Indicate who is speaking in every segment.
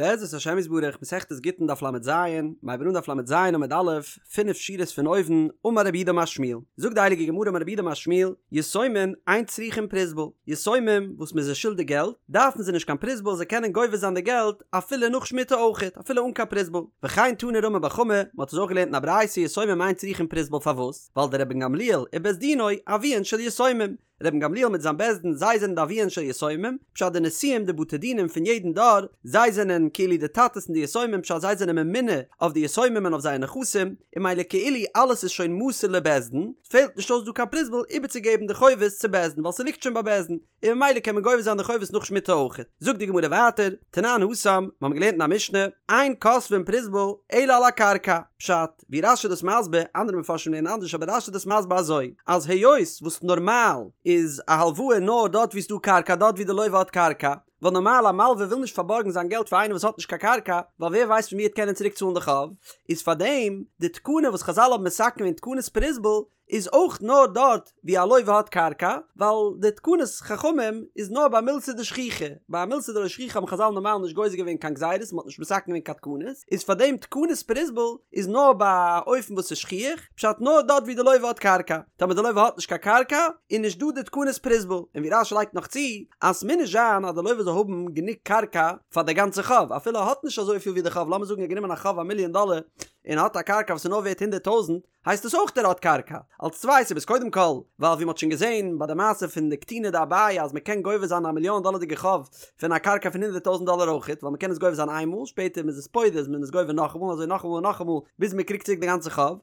Speaker 1: בעזרת השם יתברך, מסכת גיטין דף לז, מ'הייבט אן דף לז עמוד א', פינף שורות פון אויבן, אמר רב יהודה אמר שמואל, זאגט די הייליגע גמרא אמר רב יהודה אמר שמואל, יתומים אין צריכין פרוזבול, יתומים וואס מ'איז זיי שולדיג געלט, דארפן זיי נישט קיין פרוזבול זיי קענען גובה זיין די געלט אפילו נאך שמיטה אויכעט, אפילו אן קיין פרוזבול. וכן תני רמי בר חמא, מ'האט עס אויך געלערנט אין א ברייתא יתומים אין צריכין פרוזבול פארוואס? ווייל דרבן גמליאל ובית דינו אביהן של יתומים, רבן גמליאל מיט זיין בית דין זיי זענען די אביהן של יתומים, פשט די נשיאים די בתי דינים פון יעדן דור, זיי זענען כאילו די טאטעס פון די יתומים פשט זיי זענען ממונה אויף די יתומים און אויף זייער נכסים, און ממילא כאילו אלעס איז שוין מסור לבית דין, פעלט נישט אויס דא קיין פרוזבול איבערצוגעבן די חובות צו בית דין ווייל ס'ליגט שוין ביי בית דין, און ממילא קען מען גובה זיין די חובות נאך שמיטה אויכעט. זאגט די גמרא ווייטער, תנן התם, מ'האמיר געלערנט אין א משנה, אין כותבין פרוזבול אלא על הקרקע, פשט, ווי רש"י איז דאס מסביר, אנדערע מפרשים לערנען אנדערש אבער רש"י איז דאס מסביר אזוי, אז היות וואס נארמאל איז א הלוואה נאר דארט ווי ס'דא קרקע דארט ווי די לוה האט קרקע, ווייל נארמאל א מלווה וויל נישט פארבארגן זיין געלט פאר איינעם וואס האט נישט קיין קרקע, ווייל ווער ווייסט פון ווי ער וועט קענען צוריק צאלן די חוב, איז פארדעם די תקנה וואס חז"ל האבן מתקן געווען תקנת פרוזבול איז אויך נאר דארט ווי א לוה האט קרקע, ווייל די תקנת חכמים איז נאר ביי מילתא דשכיחא, ביי א מילתא דלא שכיחא האבן חז"ל נארמאל נישט גוזר געווען קיין גזירות, מ'האט נישט מתקן געווען קיין תקנות, איז פאר דעם תקנת פרוזבול איז נאר ביי א אופן וואס איז שכיח, פשט נאר דארט ווי די לוה האט קרקע, טאמער די לוה האט נישט קיין קרקע איז נישט דא די תקנת פרוזבול, און ווי רש"י לייגט נאך צו אז ס'מוז נישט זיין אז די לוה זאל האבן גענוג קרקע פאר די גאנצע חוב, אפילו ער האט נישט אזויפיל ווי די חוב, לאמיר זאגן ער האט גענומען א חוב א מיליאן דאלער און האט א קרקע וואס איז נאר ווערט הונדערט טויזנט, הייסט עס אויך ער האט קרקע? אלס צוויי סיבות קודם כל ווייל ווי מ'האט שוין געזען ביי די מעשה פון די קטינא דאביי אז מ'קען גובה זיין א מיליאן דאלערדיגע חוב פון א קרקע פון הונדערט טויזנט דאלער אויכעט ווייל מ'קען עס גובה זיין איינמאל שפעטער מ'איז עס פודה איז מען עס גובה נאכאמאל אזוי נאכאמאל און נאכאמאל ביז מ'קריגט צוריק די גאנצע חוב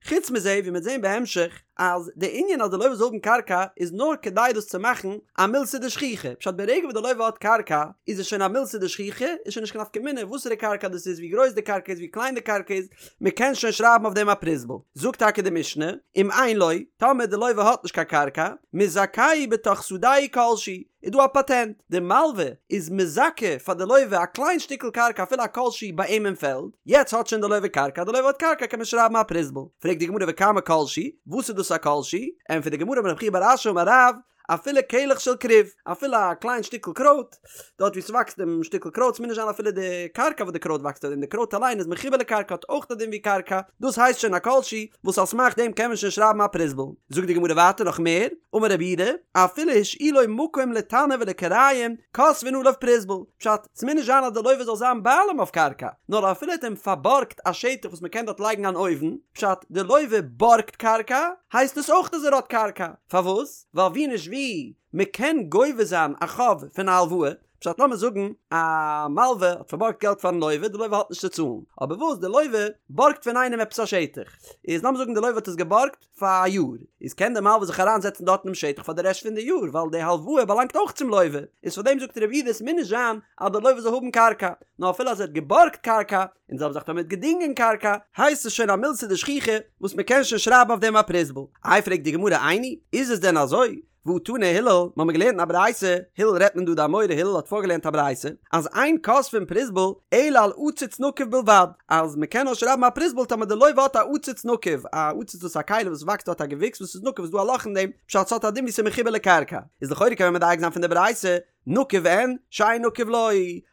Speaker 1: חוץ מזה ווי מ'וועט זען בהמשך אז די ענין אז די לוה זאל האבן קרקע איז נאר כדי דאס צו מאכן א מילתא דשכיחא פשט ברגע וואס די לוה האט קרקע איז עס שוין א מילתא דשכיחא איז שוין נישט קיין נפקא מינה וואסערע קרקע דאס איז ווי גרויס די קרקע איז ווי קליין די קרקע איז מען קען שוין שרייבן אויף דעם א פרוזבול. זאגט טאקע די משנה, אם אין לו, טאמער די לוה האט נישט קיין קרקע, מזכהו בתוך שדהו כל שהוא, איז דא א פאטענט, די מלווה איז מזכה פאר די לוה א קליין שטיקל קרקע אפילו א כל שהוא ביי אים אין פעלד, יעצט האט שוין די לוה קרקע, די לוה האט קרקע קען מען שרייבן א פרוזבול. פרעגט די גמרא וכמה כל שהוא, וואס איז דאס א כל שהוא? ענטפערט די גמרא אמר רב חייא בר אשי אמר רב, אפילו קלח של כרוב, אפילו א קליין שטיקל קרויט, דארט ווי ס'וואקסט דעם שטיקל קרויט, ס'מוז נישט זיין אפילו די קרקע וואס די קרויט וואקסט אויף דעם, די קרויט אליין איז מחובר לקרקע האט אויך א דין ווי קרקע, דאס הייסט שוין א כל שהוא, וואס על סמך דעם קען מען שוין שרייבן א פרוזבול. זאגט די גמרא ווייטער נאך מער, אמר רב יהודה, אפילו השאילו מקום לתנור ולכיריים, כותבין עליו פרוזבול, פשט, ס'מוז נישט זיין אז די לוה זאל זיין בעלים אויף קרקע, נאר אפילו ער האט אים פארבארגט א שטח וואס מ'קען דארט לייגן אן אויוון, פשט, די לוה בארגט קרקע, הייסט עס אויך אז ער האט קרקע. פארוואס? ווייל ווי נישט ווי, מען קען גובה זיין א חוב פון א הלוואה, פשט לאמיר זאגן א מלווה האט פארבארגט געלט פארן לוה, די לוה האט נישט צו צאלן, אבער וואס די לוה בארגט פון איינעם עפעס א שטח, איז לאמיר זאגן די לוה האט עס געבארגט פאר א יאר, איז קען די מלווה זיך אריין זעצן דארט אינעם שטח פאר די רעשט פון די יאר, ווייל די הלוואה באלאנגט אויך צום לוה, איז פאר דעם זאגט רב יהודה עס מוז נישט זיין אז די לוה זאל האבן קרקע, נאר אפילו אז ער האט געבארגט קרקע, און זעלבע זאך טאמער מ'האט געדינגען קרקע, הייסט עס שוין א מילתא דשכיחא וואס מען קען שוין שרייבן אויף דעם א פרוזבול. איי פרעגט די גמרא איני, איז עס דען אזוי? והא תני הלל, מ'האמיר געלערנט אין א ברייתא, הלל רעדט מען דא די אמורא הלל האט פארגעלערנט א ברייתא, אז אין כותבין פרוזבול אלא על עציץ נקוב בלבד, אז מען קען נאר שרייבן א פרוזבול טאמער די לוה האט א עציץ נקוב, א עציץ דאס איז א כלי וואס וואקסט דארט א געוויקס וואס איז נקוב איז דא א לאך אין דעם, פשט ס'האט א דין ווי ס'איז מחובר לקרקע, איז לכאורה קען מען מדייק זיין פון די ברייתא, נקוב אין, שאין נקוב לא,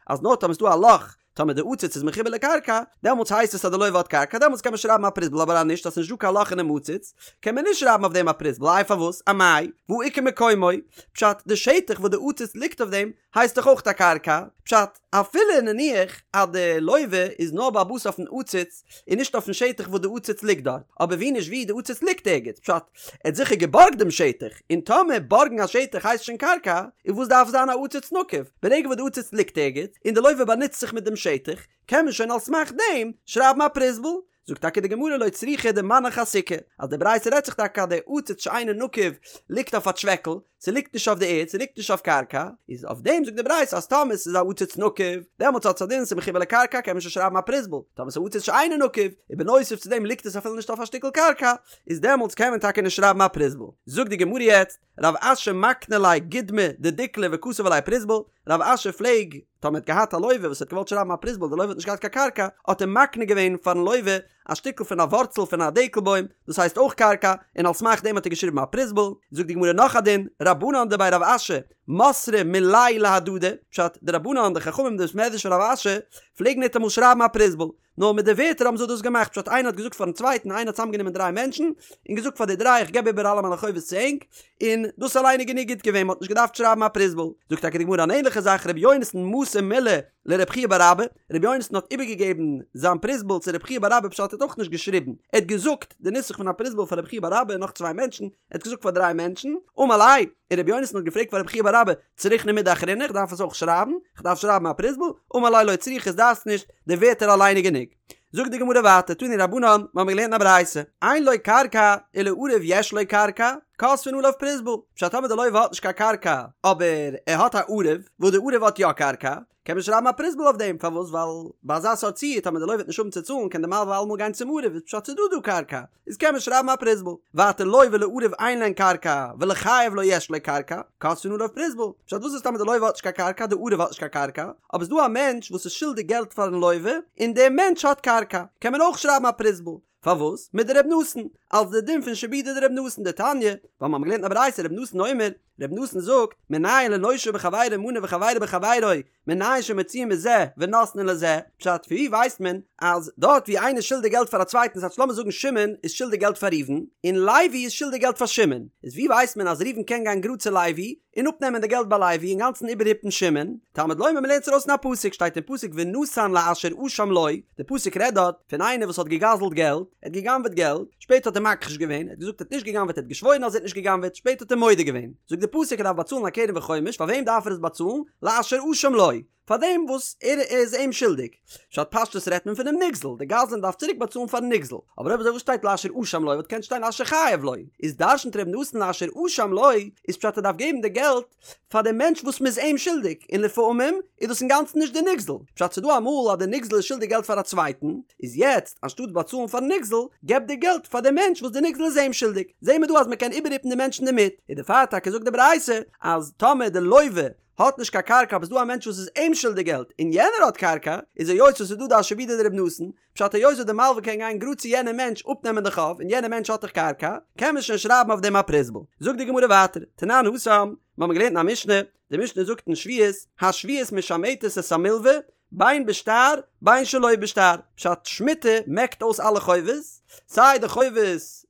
Speaker 1: אז נאר טאמער ס'איז דא א לאך טאמער די עציץ איז מחובר לקרקע, דעמאלטס הייסט עס אז די לוה האט קרקע, דעמאלטס קען מען שרייבן א פרוזבול, אבער אז נישט, אז ס'נישט דא קיין לאך אינעם עציץ, קען מען נישט שרייבן אויף דעם א פרוזבול, איי פארוואס? אמאי, והא איכא מקומו, פשט, די שטח וואס די עציץ ליגט אויף דעם, הייסט דאך אויך א קרקע, פשט, אפילו נניח אז די לוה איז נאר בעל הבית אויפן עציץ, און נישט אויפן שטח וואס די עציץ ליגט דארט, אבער ווי נישט ווי, די עציץ ליגט ערגעץ, פשט, ער האט זיכער געבארגט דעם שטח, און טאמער בארגן א שטח הייסט שוין קרקע, איז וואס דארף זיין א עציץ נקוב? ברגע וואס די עציץ ליגט ערגעץ, און די לוה באנוצט זיך מיט דעם שטח, קען מען שוין על סמך דעם שרייבן א פרוזבול. זאגט טאקע די גמרא לא צריכא דמנח אסיכא, אז די ברייתא רעדט זיך טאקע אז די עציץ שאינו נקוב ליגט אויף א טשוועקל, ס'ליגט נישט אויף די ערד, ס'ליגט נישט אויף קרקע, איז אויף דעם זאגט די ברייתא אז טאמער ס'איז א עציץ נקוב, דעמאלטס האט עס א דין ס'איז מחובר לקרקע קען מען שוין שרייבן א פרוזבול, טאמער ס'איז עציץ שאינו נקוב, און בנוסף צו דעם ליגט עס אפילו נישט אויף א שטיקל קרקע, איז דעמאלטס קען מען טאקע נישט שרייבן א פרוזבול. זאגט די גמרא יעצט, רב אשי מקני ליה גודמא דדיקלא וכתב עליה פרוזבול, רב אשי פלעג, טאמער האט געהאט א לוה וואס האט געוואלט שרייבן א פרוזבול די לוה האט נישט געהאט קיין קרקע, האט ער מקנה געווען פארן לוה. א שטיקל פון א ווארצל פון א דקל בוים, דאס הייסט אויך קרקע, און על סמך דעם האט ער געשריבן א פרוזבול. זאגט די גמרא נאך א דין, רבנן דבי רב אשי, מסרי מילייהו להדדי, פשט, די רבנן, די חכמים די בית מדרש פון רב אשי, פלעגן ניטאמאל שרייבן א פרוזבול, נאר מיט די ווערטער האבן זיי דאס געמאכט, פשט איינער האט געזאגט פארן צווייטן, איינער האט צוזאמגענומען דריי מענטשן, און געזאגט פאר די דריי איך געב איבער אלע מיינע חובות צו ענק, און דאס אליין איז גענוג גוט געווען, מען האט נישט געדארפט שרייבן א פרוזבול. זאגט טאקע די גמרא אן ענליכע זאך, רבי יונתן מסר מילי לרבי חייא בר אבא, רבי יונתן האט איבערגעגעבן זיין פרוזבול צו רבי חייא בר אבא פשט ער האט אויך נישט געשריבן, ער האט געזאגט די נוסח פון א פרוזבול פאר רבי חייא בר אבא און נאך צוויי מענטשן, ער האט געזאגט פאר דריי מענטשן, אמר ליה, און רבי יונתן האט געפרעגט פאר רבי חייא בר אבא, צריכנא מידי אחרינא, איך דארף עס אויך שרייבן? איך דארף שרייבן א פרוזבול? אמר ליה לא צריכא דארפסט נישט, די ווערטער אליין איז גענוג. זאגט די גמרא ווייטער, תנו רבנן, מיר האבן געלערנט אין א ברייתא, אין לו קרקע ולעריו יש לו קרקע, כותבין עליו פרוזבול, פשט טאמער די לוה האט נישט קיין קרקע, אבער ער האט א ערב, וואס די ערב האט יא קרקע, קען מען שרייבן א פרוזבול אויף דעם, פארוואס? ווייל ביי אזא סארט ציור טאמער די לוה וועט נישט האבן צו צאלן קען די מלווה אלעמאל גיין צום ערב, איז פשט ס'איז דא דא קרקע, איז קען מען שרייבן א פרוזבול. ווייטער לו ולעריו אין להן קרקע ולחייב לו יש לו קרקע, כותבין עליו פרוזבול. פשט וואס איז טאמער די לוה האט נישט קיין קרקע, די ערב האט נישט קיין קרקע, אבער ס'איז דא א מענטש וואס איז שולדיג געלט פארן לוה, און דער מענטש האט קרקע, קען מען אויך שרייבן א פרוזבול. פארוואס? מדר' נתן, אלס די דין פון שעבודא דר' נתן דתניא, ווייל מ'האמיר געלערנט אין א ברייתא ר' נתן אומר, ר' נתן זאגט, מנין לנושה בחבירו מנה וחבירו בחבירו, מנין שמוציאין מזה ונותנין לזה, פשט, פון ווי ווייסט מען אז דארט ווי איינער איז שולדיג געלט פאר א צווייטן ס'הייסט לאמיר זאגן שמעון איז שולדיג געלט פאר ראובן, און לוי איז שולדיג געלט פאר שמעון, איז ווי ווייסט מען אז ראובן קען גיין גראד צו לוי און אפנעמען די געלט ביי לוי אינגאנצן איבערהיפן שמעון, תלמוד לומר מ'לערנט עס ארויס אין א פסוק, שטייט אין פסוק ונתן לאשר אשם לו, די פסוק רעדט דארט פון איינער וואס האט געגזלט געלט, ער האט גע'גנב'עט געלט, שפעטער האט ער מכחיש געווען, ער האט געזאגט ער האט נישט גע'גנב'עט ער האט געשוואוירן אז ער האט נישט גע'גנב'עט, שפעטער האט ער מודה געווען, זאגט די פסוק ער דארף באצאלן א קרן וחומש, פאר וועם דארף ער עס באצאלן? לאשר אשם לו, פאר דעם וואס ער איז אים שולדיג. פשט פשטות רעדט מען פונעם נגזל, די גזלן דארף צוריק באצאלן פארן נגזל, אבער אויב אזוי וואס שטייט לאשר אשם לו וואלט געקענט שטיין לאשר חייב לו, איז דרשנ'ט ר' נתן לאשר אשם לו, איז פשט ער דארף געבן די געלט פאר דעם מענטש וואס מ'איז אים שולדיג, און לפעמים איז דאס אינגאנצן נישט די נגזל, פשט ס'דא אמאל אז די נגזל איז שולדיג געלט פאר א צווייטן, איז יעצט אנשטאט באצאלן פארן נגזל, געב די געלט פאר די מענטש וואס די נגזל איז אים שולדיג, זעהן מיר דא אז מ'קען איבערהיפן די מענטש אינדערמיט, איז דערפאר טאקע זאגט די ברייתא אז טאמער די לוה האט נישט קיין קרקע אבער ס'דא א מענטש וואס איז אים שולדיג געלט און יענער האט קרקע, איז היות וואס ס'איז דא די שעבודא דר' נתן, פשט היות וואס די מלווה קען גיין גראד צו יענעם מענטש אפנעמען די חוב און יענער מענטש האט דאך קרקע, קען מען שוין שרייבן אויף דעם א פרוזבול. זאגט די גמרא ווייטער, תנן התם, מיר האבן געלערנט אין א משנה, די משנה זאגט אין שביעית, השביעית משמטת את המלווה, בין בשטר בין שלא בשטר, פשט שמיטה מעקט אויס אלע חובות, סיי די חובות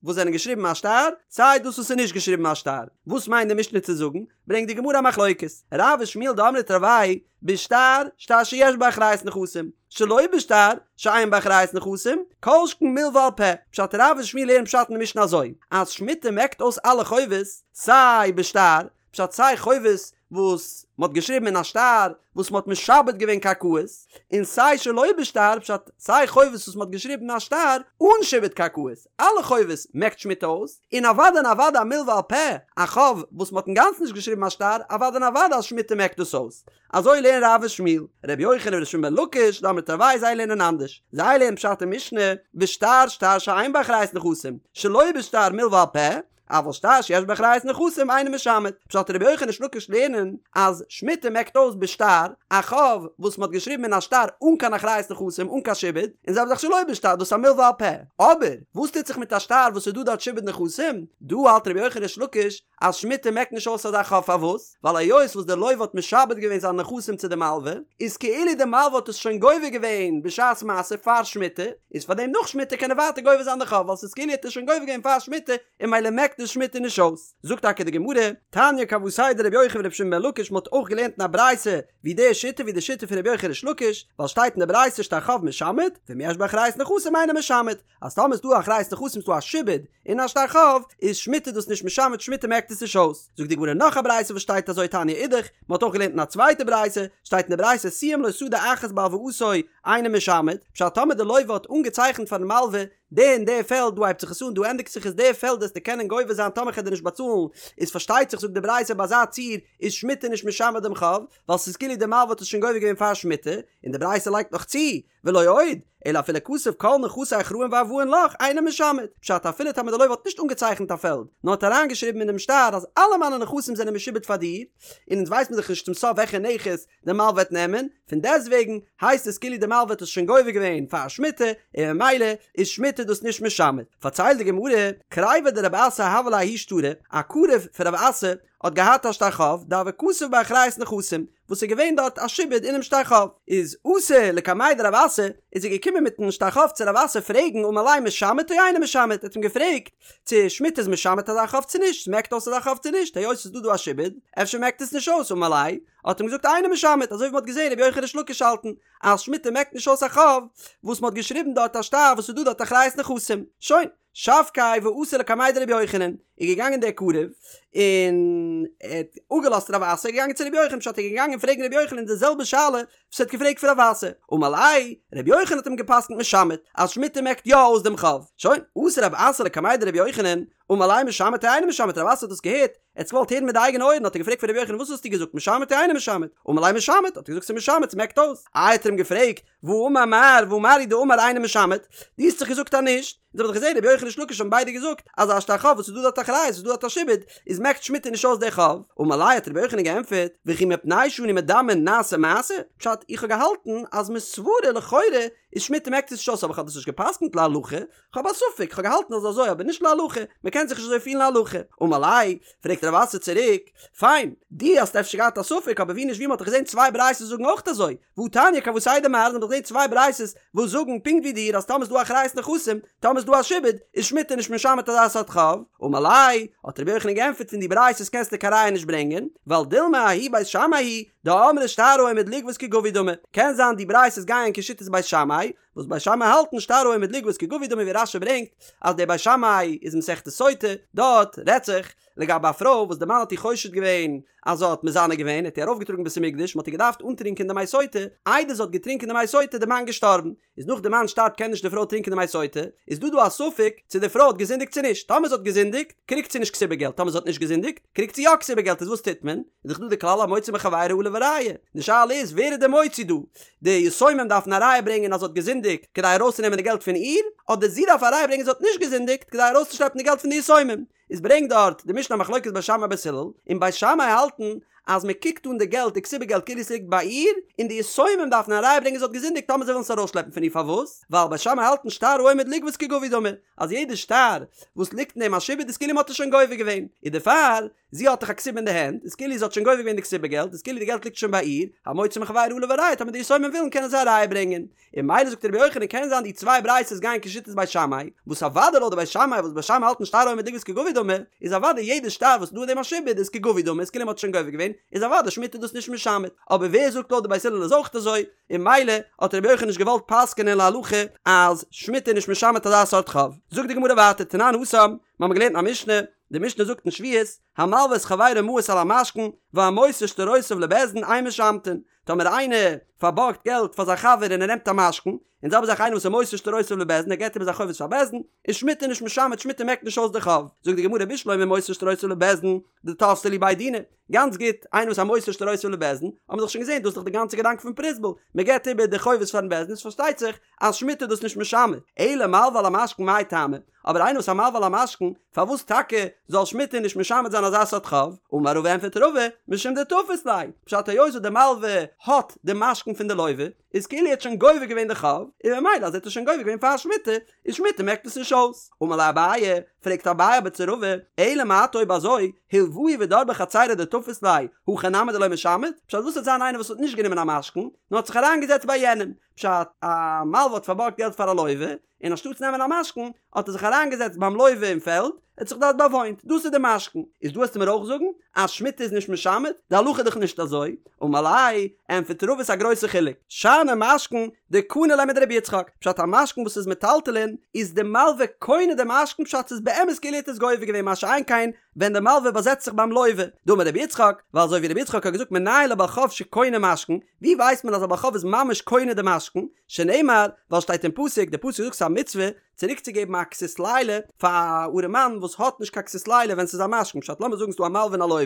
Speaker 1: וואס זענען געשריבן א שטר, סיי דאס וואס איז נישט געשריבן א שטר. וואס מיינט די משנה צו זאגן? ברענגט די גמרא א מחלוקת, רב ושמואל דאמרי תרוייהו בשטר, שטר שיש בו אחריות נכסים, שלא בשטר, שאין בו אחריות נכסים, כל שכן מלוה על פה, פשט רב און שמואל לערנען פשט אין די משנה אזוי, אז שמיטה מעקט אויס אלע חובות, סיי בשטר, פשט סיי חובות וואס מ'האט געשריבן אין א שטר וואס מ'האט משעבד געווען קרקעות, און סיי שלא בשטר, פשט סיי חובות וואס מ'האט געשריבן אין א שטר אן שעבוד קרקעות, אלע חובות מעקט שמיטה אויס, און אוודאי און אוודאי א מלוה על פה, א חוב וואס מ'האט אינגאנצן נישט געשריבן א שטר, אוודאי און אוודאי אז שמיטה מעקט דאס אויס. אזוי לערנען רב און שמואל. ר' יוחנן ור' שמעון בן לקיש, דאמרי תרוייהו זיי לערנען אנדערש. זיי לערנען פשט אין משנה, בשטר שטר שאין בו אחריות נכסים, שלא בשטר מלוה על פה, אבל שטר שיש בו אחריות נכסים אינו משמט. פשט רבי יוחנן ריש לקיש לערנען אז שמיטה מעקט אויס בשטר א חוב וואס מ'האט געשריבן אין א שטר אן קיין אחריות נכסים אן קיין שעבוד, און זעלבע זאך שלא בשטר דאס איז א מלוה על פה. אבער וואס טוט זיך מיט א שטר וואס איז דא דארט שעבוד נכסים? דא האלט רבי יוחנן ריש לקיש אז שמיטה מעקט נישט אויס אזא חוב פארוואס? ווייל היות וואס דער לוה האט משעבד געווען זיינע נכסים צו די מלווה, איז כאילו די מלווה האט עס שוין גובה געווען בשעת מעשה פאר שמיטה, איז פארדעם נאך שמיטה קען ער ווייטער גובה זיין די חוב ווייל ס'איז כאילו ער האט עס שוין גובה געווען פאר שמיטה און ממילא מעקט עס שמיטה נישט אויס. זאגט טאקע די גמרא, תניא כוותיה דרבי יוחנן ורבי שמעון בן לקיש מ'האט אויך געלערנט אין א ברייתא ווי די שיטה ווי די שיטה פון רבי יוחנן ריש לקיש, ווייל שטייט אין די ברייתא שטר חוב משמט, ואם יש בו אחריות נכסים אינו משמט, אז טאמער איז דא אחריות נכסים איז דא א שעבוד אין א שטר חוב, איז שמיטה דאס נישט משמט שמיטה מעקט עס נישט אויס. זאגט די גמרא נאך א ברייתא וואס שטייט אזוי תניא אידך, מען האט אויך געלערנט אין א צווייטע ברייתא, שטייט אין די ברייתא סיים לו שדה אחת בהלוואתו אינו משמט, פשט טאמער די לוה האט אנגעצייכנט פארן מלווה די און די פעלד דא הייבט זיך עס אן דא ענדיגט זיך עס די פעלד וועסטו קענען גובה זיין טאמער כ'על דיר נישט באצאלן, איז פארשטייט זיך זאגט די ברייתא ביי אזא ציור איז שמיטה נישט משמט דעם חוב, ווייל ס'איז כאילו די מלווה האט עס שוין גובה געווען פאר שמיטה, און די ברייתא לייגט נאך צו, ולא עוד, אלא אפילו כתב כל נכסי אחראין וערבאין לך אינו משמט, פשט אפילו טאמער די לוה האט נישט אנגעצייכנט א פעלד, נאר האט אריינגעשריבן אינעם שטר אז אלע מיינע נכסים זענען משועבד פאר דיר, און אונז ווייסט מען דאך נישט צום סוף וועלכע נכס די מלווה וועט נעמען, פון דעסטוועגן הייסט עס כאילו די מלווה האט עס שוין גובה געווען פאר שמיטה, און ממילא איז שמיטה דאס נישט משמט. פארציילט די גמרא, קריביה דרב אסי הוה ליה ההוא שטרא, א קרוב פון רב אסי האט געהאט א שטר חוב דהוה כתיב ביה אחריות נכסים, וואס איז געווען דארט א שעבוד אינעם שטר חוב, איז אתא לקמיה דרב אסי, איז ער געקומען מיטן שטר חוב צו רב אסי פרעגן אמר ליה משמט או אינו משמט, ער האט אים געפרעגט צו שמיטה איז משמט אזא חוב צו נישט, ס'מעקט אויס אזא חוב צו נישט, היות ס'איז דא דא א שעבוד, אפשר מעקט עס נישט אויס, אמר ליה, האט אים געזאגט אינו משמט, אזוי ווי מ'האט געזען רבי יוחנן ריש לקיש האלטן אז שמיטה מעקט נישט אויס א חוב וואס מ'האט געשריבן דארט א שטר וואס איז דא דארט אחריות נכסים, שוין. שבקיה ואתא לקמיה דרבי יוחנן, איז געגאנגען דער קרוב און ער האט אפגעלאזט רב אסי, איז געגאנגען צו רבי יוחנן, פשט ער איז געגאנגען פרעגן רבי יוחנן די זעלבע שאלה וואס ער האט געפרעגט פון רב אסי, אמר ליה, רבי יוחנן האט אים געפסקנט משמט, אז שמיטה מעקט יא אויס דעם חוב, שוין, אתא רב אסי לקמיה דרבי יוחנן, אמר ליה משמט או אינו משמט, רב אסי האט דאס געהערט, ער האט עס געוואלט הערן מיט די אייגענע אויערן, האט ער געפרעגט פון רבי יוחנן וואס האסטו געזאגט משמט או אינו משמט, אמר ליה משמט, האט ער געזאגט ס'איז משמט, ס'מעקט אויס, איי האט ער אים געפרעגט, והאמר מר, והא מר הוא דאמר אינו משמט, דו האסט דאך געזאגט אז נישט, אונז האבן דאך געזען רבי יוחנן ריש לקיש האבן ביידע געזאגט אז א שטר חוב וואס איז דא דארט אחריות איז דא דארט א שעבוד, איז מעקט שמיטה נישט אויס די חוב, אמר ליה האט רבי יוחנן געענטפערט, וכי מפני שאנו מדמין נעשה מעשה, פשט איך האב געהאלטן אז מסברא לכאורה איז שמיטה מעקט עס נישט אויס אבער איך האב דאס נישט געפסקנט להלכה, כ'האב א ספק, כ'האב געהאלטן אז אזוי אבער נישט להלכה, מ'קען זיך נישט אזוי פירן להלכה. אמר ליה, פרעגט רב אסי צוריק, פיין, דו האסט אפשר געהאט א ספק אבער ווי נישט ווי מ'האט דאך געזען צוויי ברייתות זאגן אויך אזוי, והתניא כוותיה דמר, מ'האט דאך געזען צוויי ברייתות וואס זאגן פונקט ווי דיר אז טאמער איז דא אחריות נכסים, טאמער איז דא א שעבוד, איז שמיטה נישט משמט אזא סארט חוב. אמר ליה, האט רבי יוחנן געענטפערט פון די ברייתות קענסטו קיין ראיה נישט ברענגען, ווייל דילמא ההיא בית שמאי היא דאמרי שטר העומד לגבות כגבוי דמי, קען זיין די ברייתות גייען כשיטת בית שמאי, וואס בית שמאי האלטן שטר העומד לגבות כגבוי דמי ווי רש"י ברענגט אז דער בית שמאי איז מסכת סוטה, דארט רעדט זיך לגבי א פרוי וואס די מאן האט איר חושד געווען אז זי האט מזנה געווען, האט איר ארויפגעטראגן בית המקדש, מען האט איר געדארפט אנטרינקען די מי סוטה, איידער זי האט געטרינקען די מי סוטה איז די מאן געשטארבן, איז נאך די מאן שטארבט קען נישט די פרוי טרינקען די מי סוטה, איז דא דא א ספק צו די פרוי האט געזינדיגט צו נישט, טאמער זי האט געזינדיגט קריגט זי נישט כתובה געלט, טאמער זי האט נישט געזינדיגט קריגט זי יא כתובה געלט, איז וואס טוט מען? איז דאך דא די כלל המוציא מחבירו עליו הראיה, די שאלה איז ווער איז די מוציא דא? די יתומים דארפן א ראיה ברענגען אז זי האט געזינדיגט כדי ארויסצונעמען די געלט פון איר, אדער זי דארף א ראיה ברענגען זי האט נישט געזינדיגט כדי ארויסצושלעפן די געלט פון די יתומים. איז ברענגט דארט די משנה א מחלוקת בית שמאי בית הלל, און בית שמאי האלטן אז מען קוקט אן די געלט די כתובה געלט כאילו עס ליגט ביי איר, און די יתומים דארפן א ראיה ברענגען זי האט געזינדיגט טאמער זיי ווילן עס ארויסשלעפן פון איר פארוואס? ווייל בית שמאי האלטן שטר העומד לגבות כגבוי דמי, אז יעדע שטר וואס ליגט אין דעם א שעבוד איז כאילו מען האט עס שוין גובה געווען, און דערפאר זי האט דאך א כתובה אין די הענט, איז כאילו זי האט שוין גובה געווען די כתובה געלט, איז כאילו די געלט ליגט שוין ביי איר, המוציא מחבירו עליו הראיה, טאמער די יתומים ווילן קענען זיי א ראיה ברענגען. און ממילא זאגט רבי יוחנן קען זיין די צוויי ברייתות גייען כשיטת בית שמאי, וואס אוודאי לויט די בית שמאי וואס בית שמאי האלטן שטר העומד לגבות כגבוי דמי, איז אוודאי יעדע שטר וואס איז דא אין דעם א שעבוד איז כגבוי דמי, איז כאילו מען האט שוין גובה געווען, איז אוודאי שמיטה דאס נישט משמט. אבער ווער זאגט לויט די בית הלל איז אויך אזוי, און ממילא האט רבי יוחנן נישט געוואלט פסק'ענען להלכה אז שמיטה איז נישט משמט אזא סארט חוב. זאגט די גמרא ווייטער תנן התם, מיר האבן געלערנט אין א משנה, די משנה זאגט אין שביעית, המלוה את חברו מעות על המשכון, והמוסר שטרותיו לבית דין אין משמטין, טאמער איינער פארבארגט געלט פאר זיין חבר און ער נעמט א משכון, און זעלבע זאך איינער וואס איז מוסר שטרותיו לבית דין ער געבט איבער זיין חובות פאר בית דין, איז שמיטה נישט משמט שמיטה מעקט נישט אויס די חוב. זאגט די גמרא בשלמא מוסר שטרותיו לבית דין, דתפסי להו בי דינא, גאנץ גוט, איינער וואס א מוסר שטרותיו לבית דין, האבן מיר דאך שוין געזען דאס איז דאך די גאנצע געדאנק פון פרוזבול, מען געבט איבער די חובות פארן בית דין איז פארשטייט זיך אז שמיטה איז דאס נישט משמט, אלא מלוה על המשכון מאי טעמא, אבער איינער וואס א מלוה על המשכון, פארוואס טאקע זאל שמיטה נישט משמט זיין אזא סארט חוב? אמר רבא ענפערט רבא, משום דתפיס ליה, פשט היות וואס די מלוה האט די משכון פון די לוה, איז כאילו ער האט שוין גובה געווען די חוב, און ממילא אז ער האט עס שוין גובה געווען פאר שמיטה, איז שמיטה מעקט עס נישט אויס. אמר ליה אביי, פרעגט אביי אבער צו רבא, אלא מעתה אויב אזוי, הלוהו ודר בחצירו דתפיס ליה, הכי נמי דלא משמט? פשט וואס וועט זיין איינער וואס האט נישט גענומען א משכון, נאר האט זיך אריינגעזעצט ביי יענעם, פשט, א מלוה האט פארבארגט געלט פאר א לוה, און אנשטאטס נעמען א משכון, האט ער זיך אריינגעזעצט ביים לוה אין פעלד, ער האט זיך דארט באוואוינט, דאס איז די משכון. איז דא וועסטו מיר אויך זאגן אז שמיטה איז נישט משמט? די הלכה איז דאך נישט אזוי. אמר ליה, ענטפערט רבא ס'איז א גרויסע חילוק. שאני משכון דקני ליה מדרבי יצחק, פשט א משכון וואס איז מטלטלין, איז די מלוה קונה די משכון פשט ס'איז באמת כאילו ער האט עס גובה געווען מה שאין כן ווען די מלוה באזעצט זיך ביים לוה. דאמר רבי יצחק, ווייל אזוי ווי רבי יצחק האט געזאגט מנין לבעל חוב שקונה משכון, ווי ווייסט מען אז א בעל חוב איז ממש קונה די משכון? שנאמר, ווייל שטייט אין פסוק, די פסוק זאגט ס'איז א מצוה צוריקצוגעבן א כסות לילה פאר א ארעמאן וואס האט נישט קיין כסות לילה ווען ס'איז א משכון, פשט לאמיר זאגן ס'איז דא א מלווה און א לוה,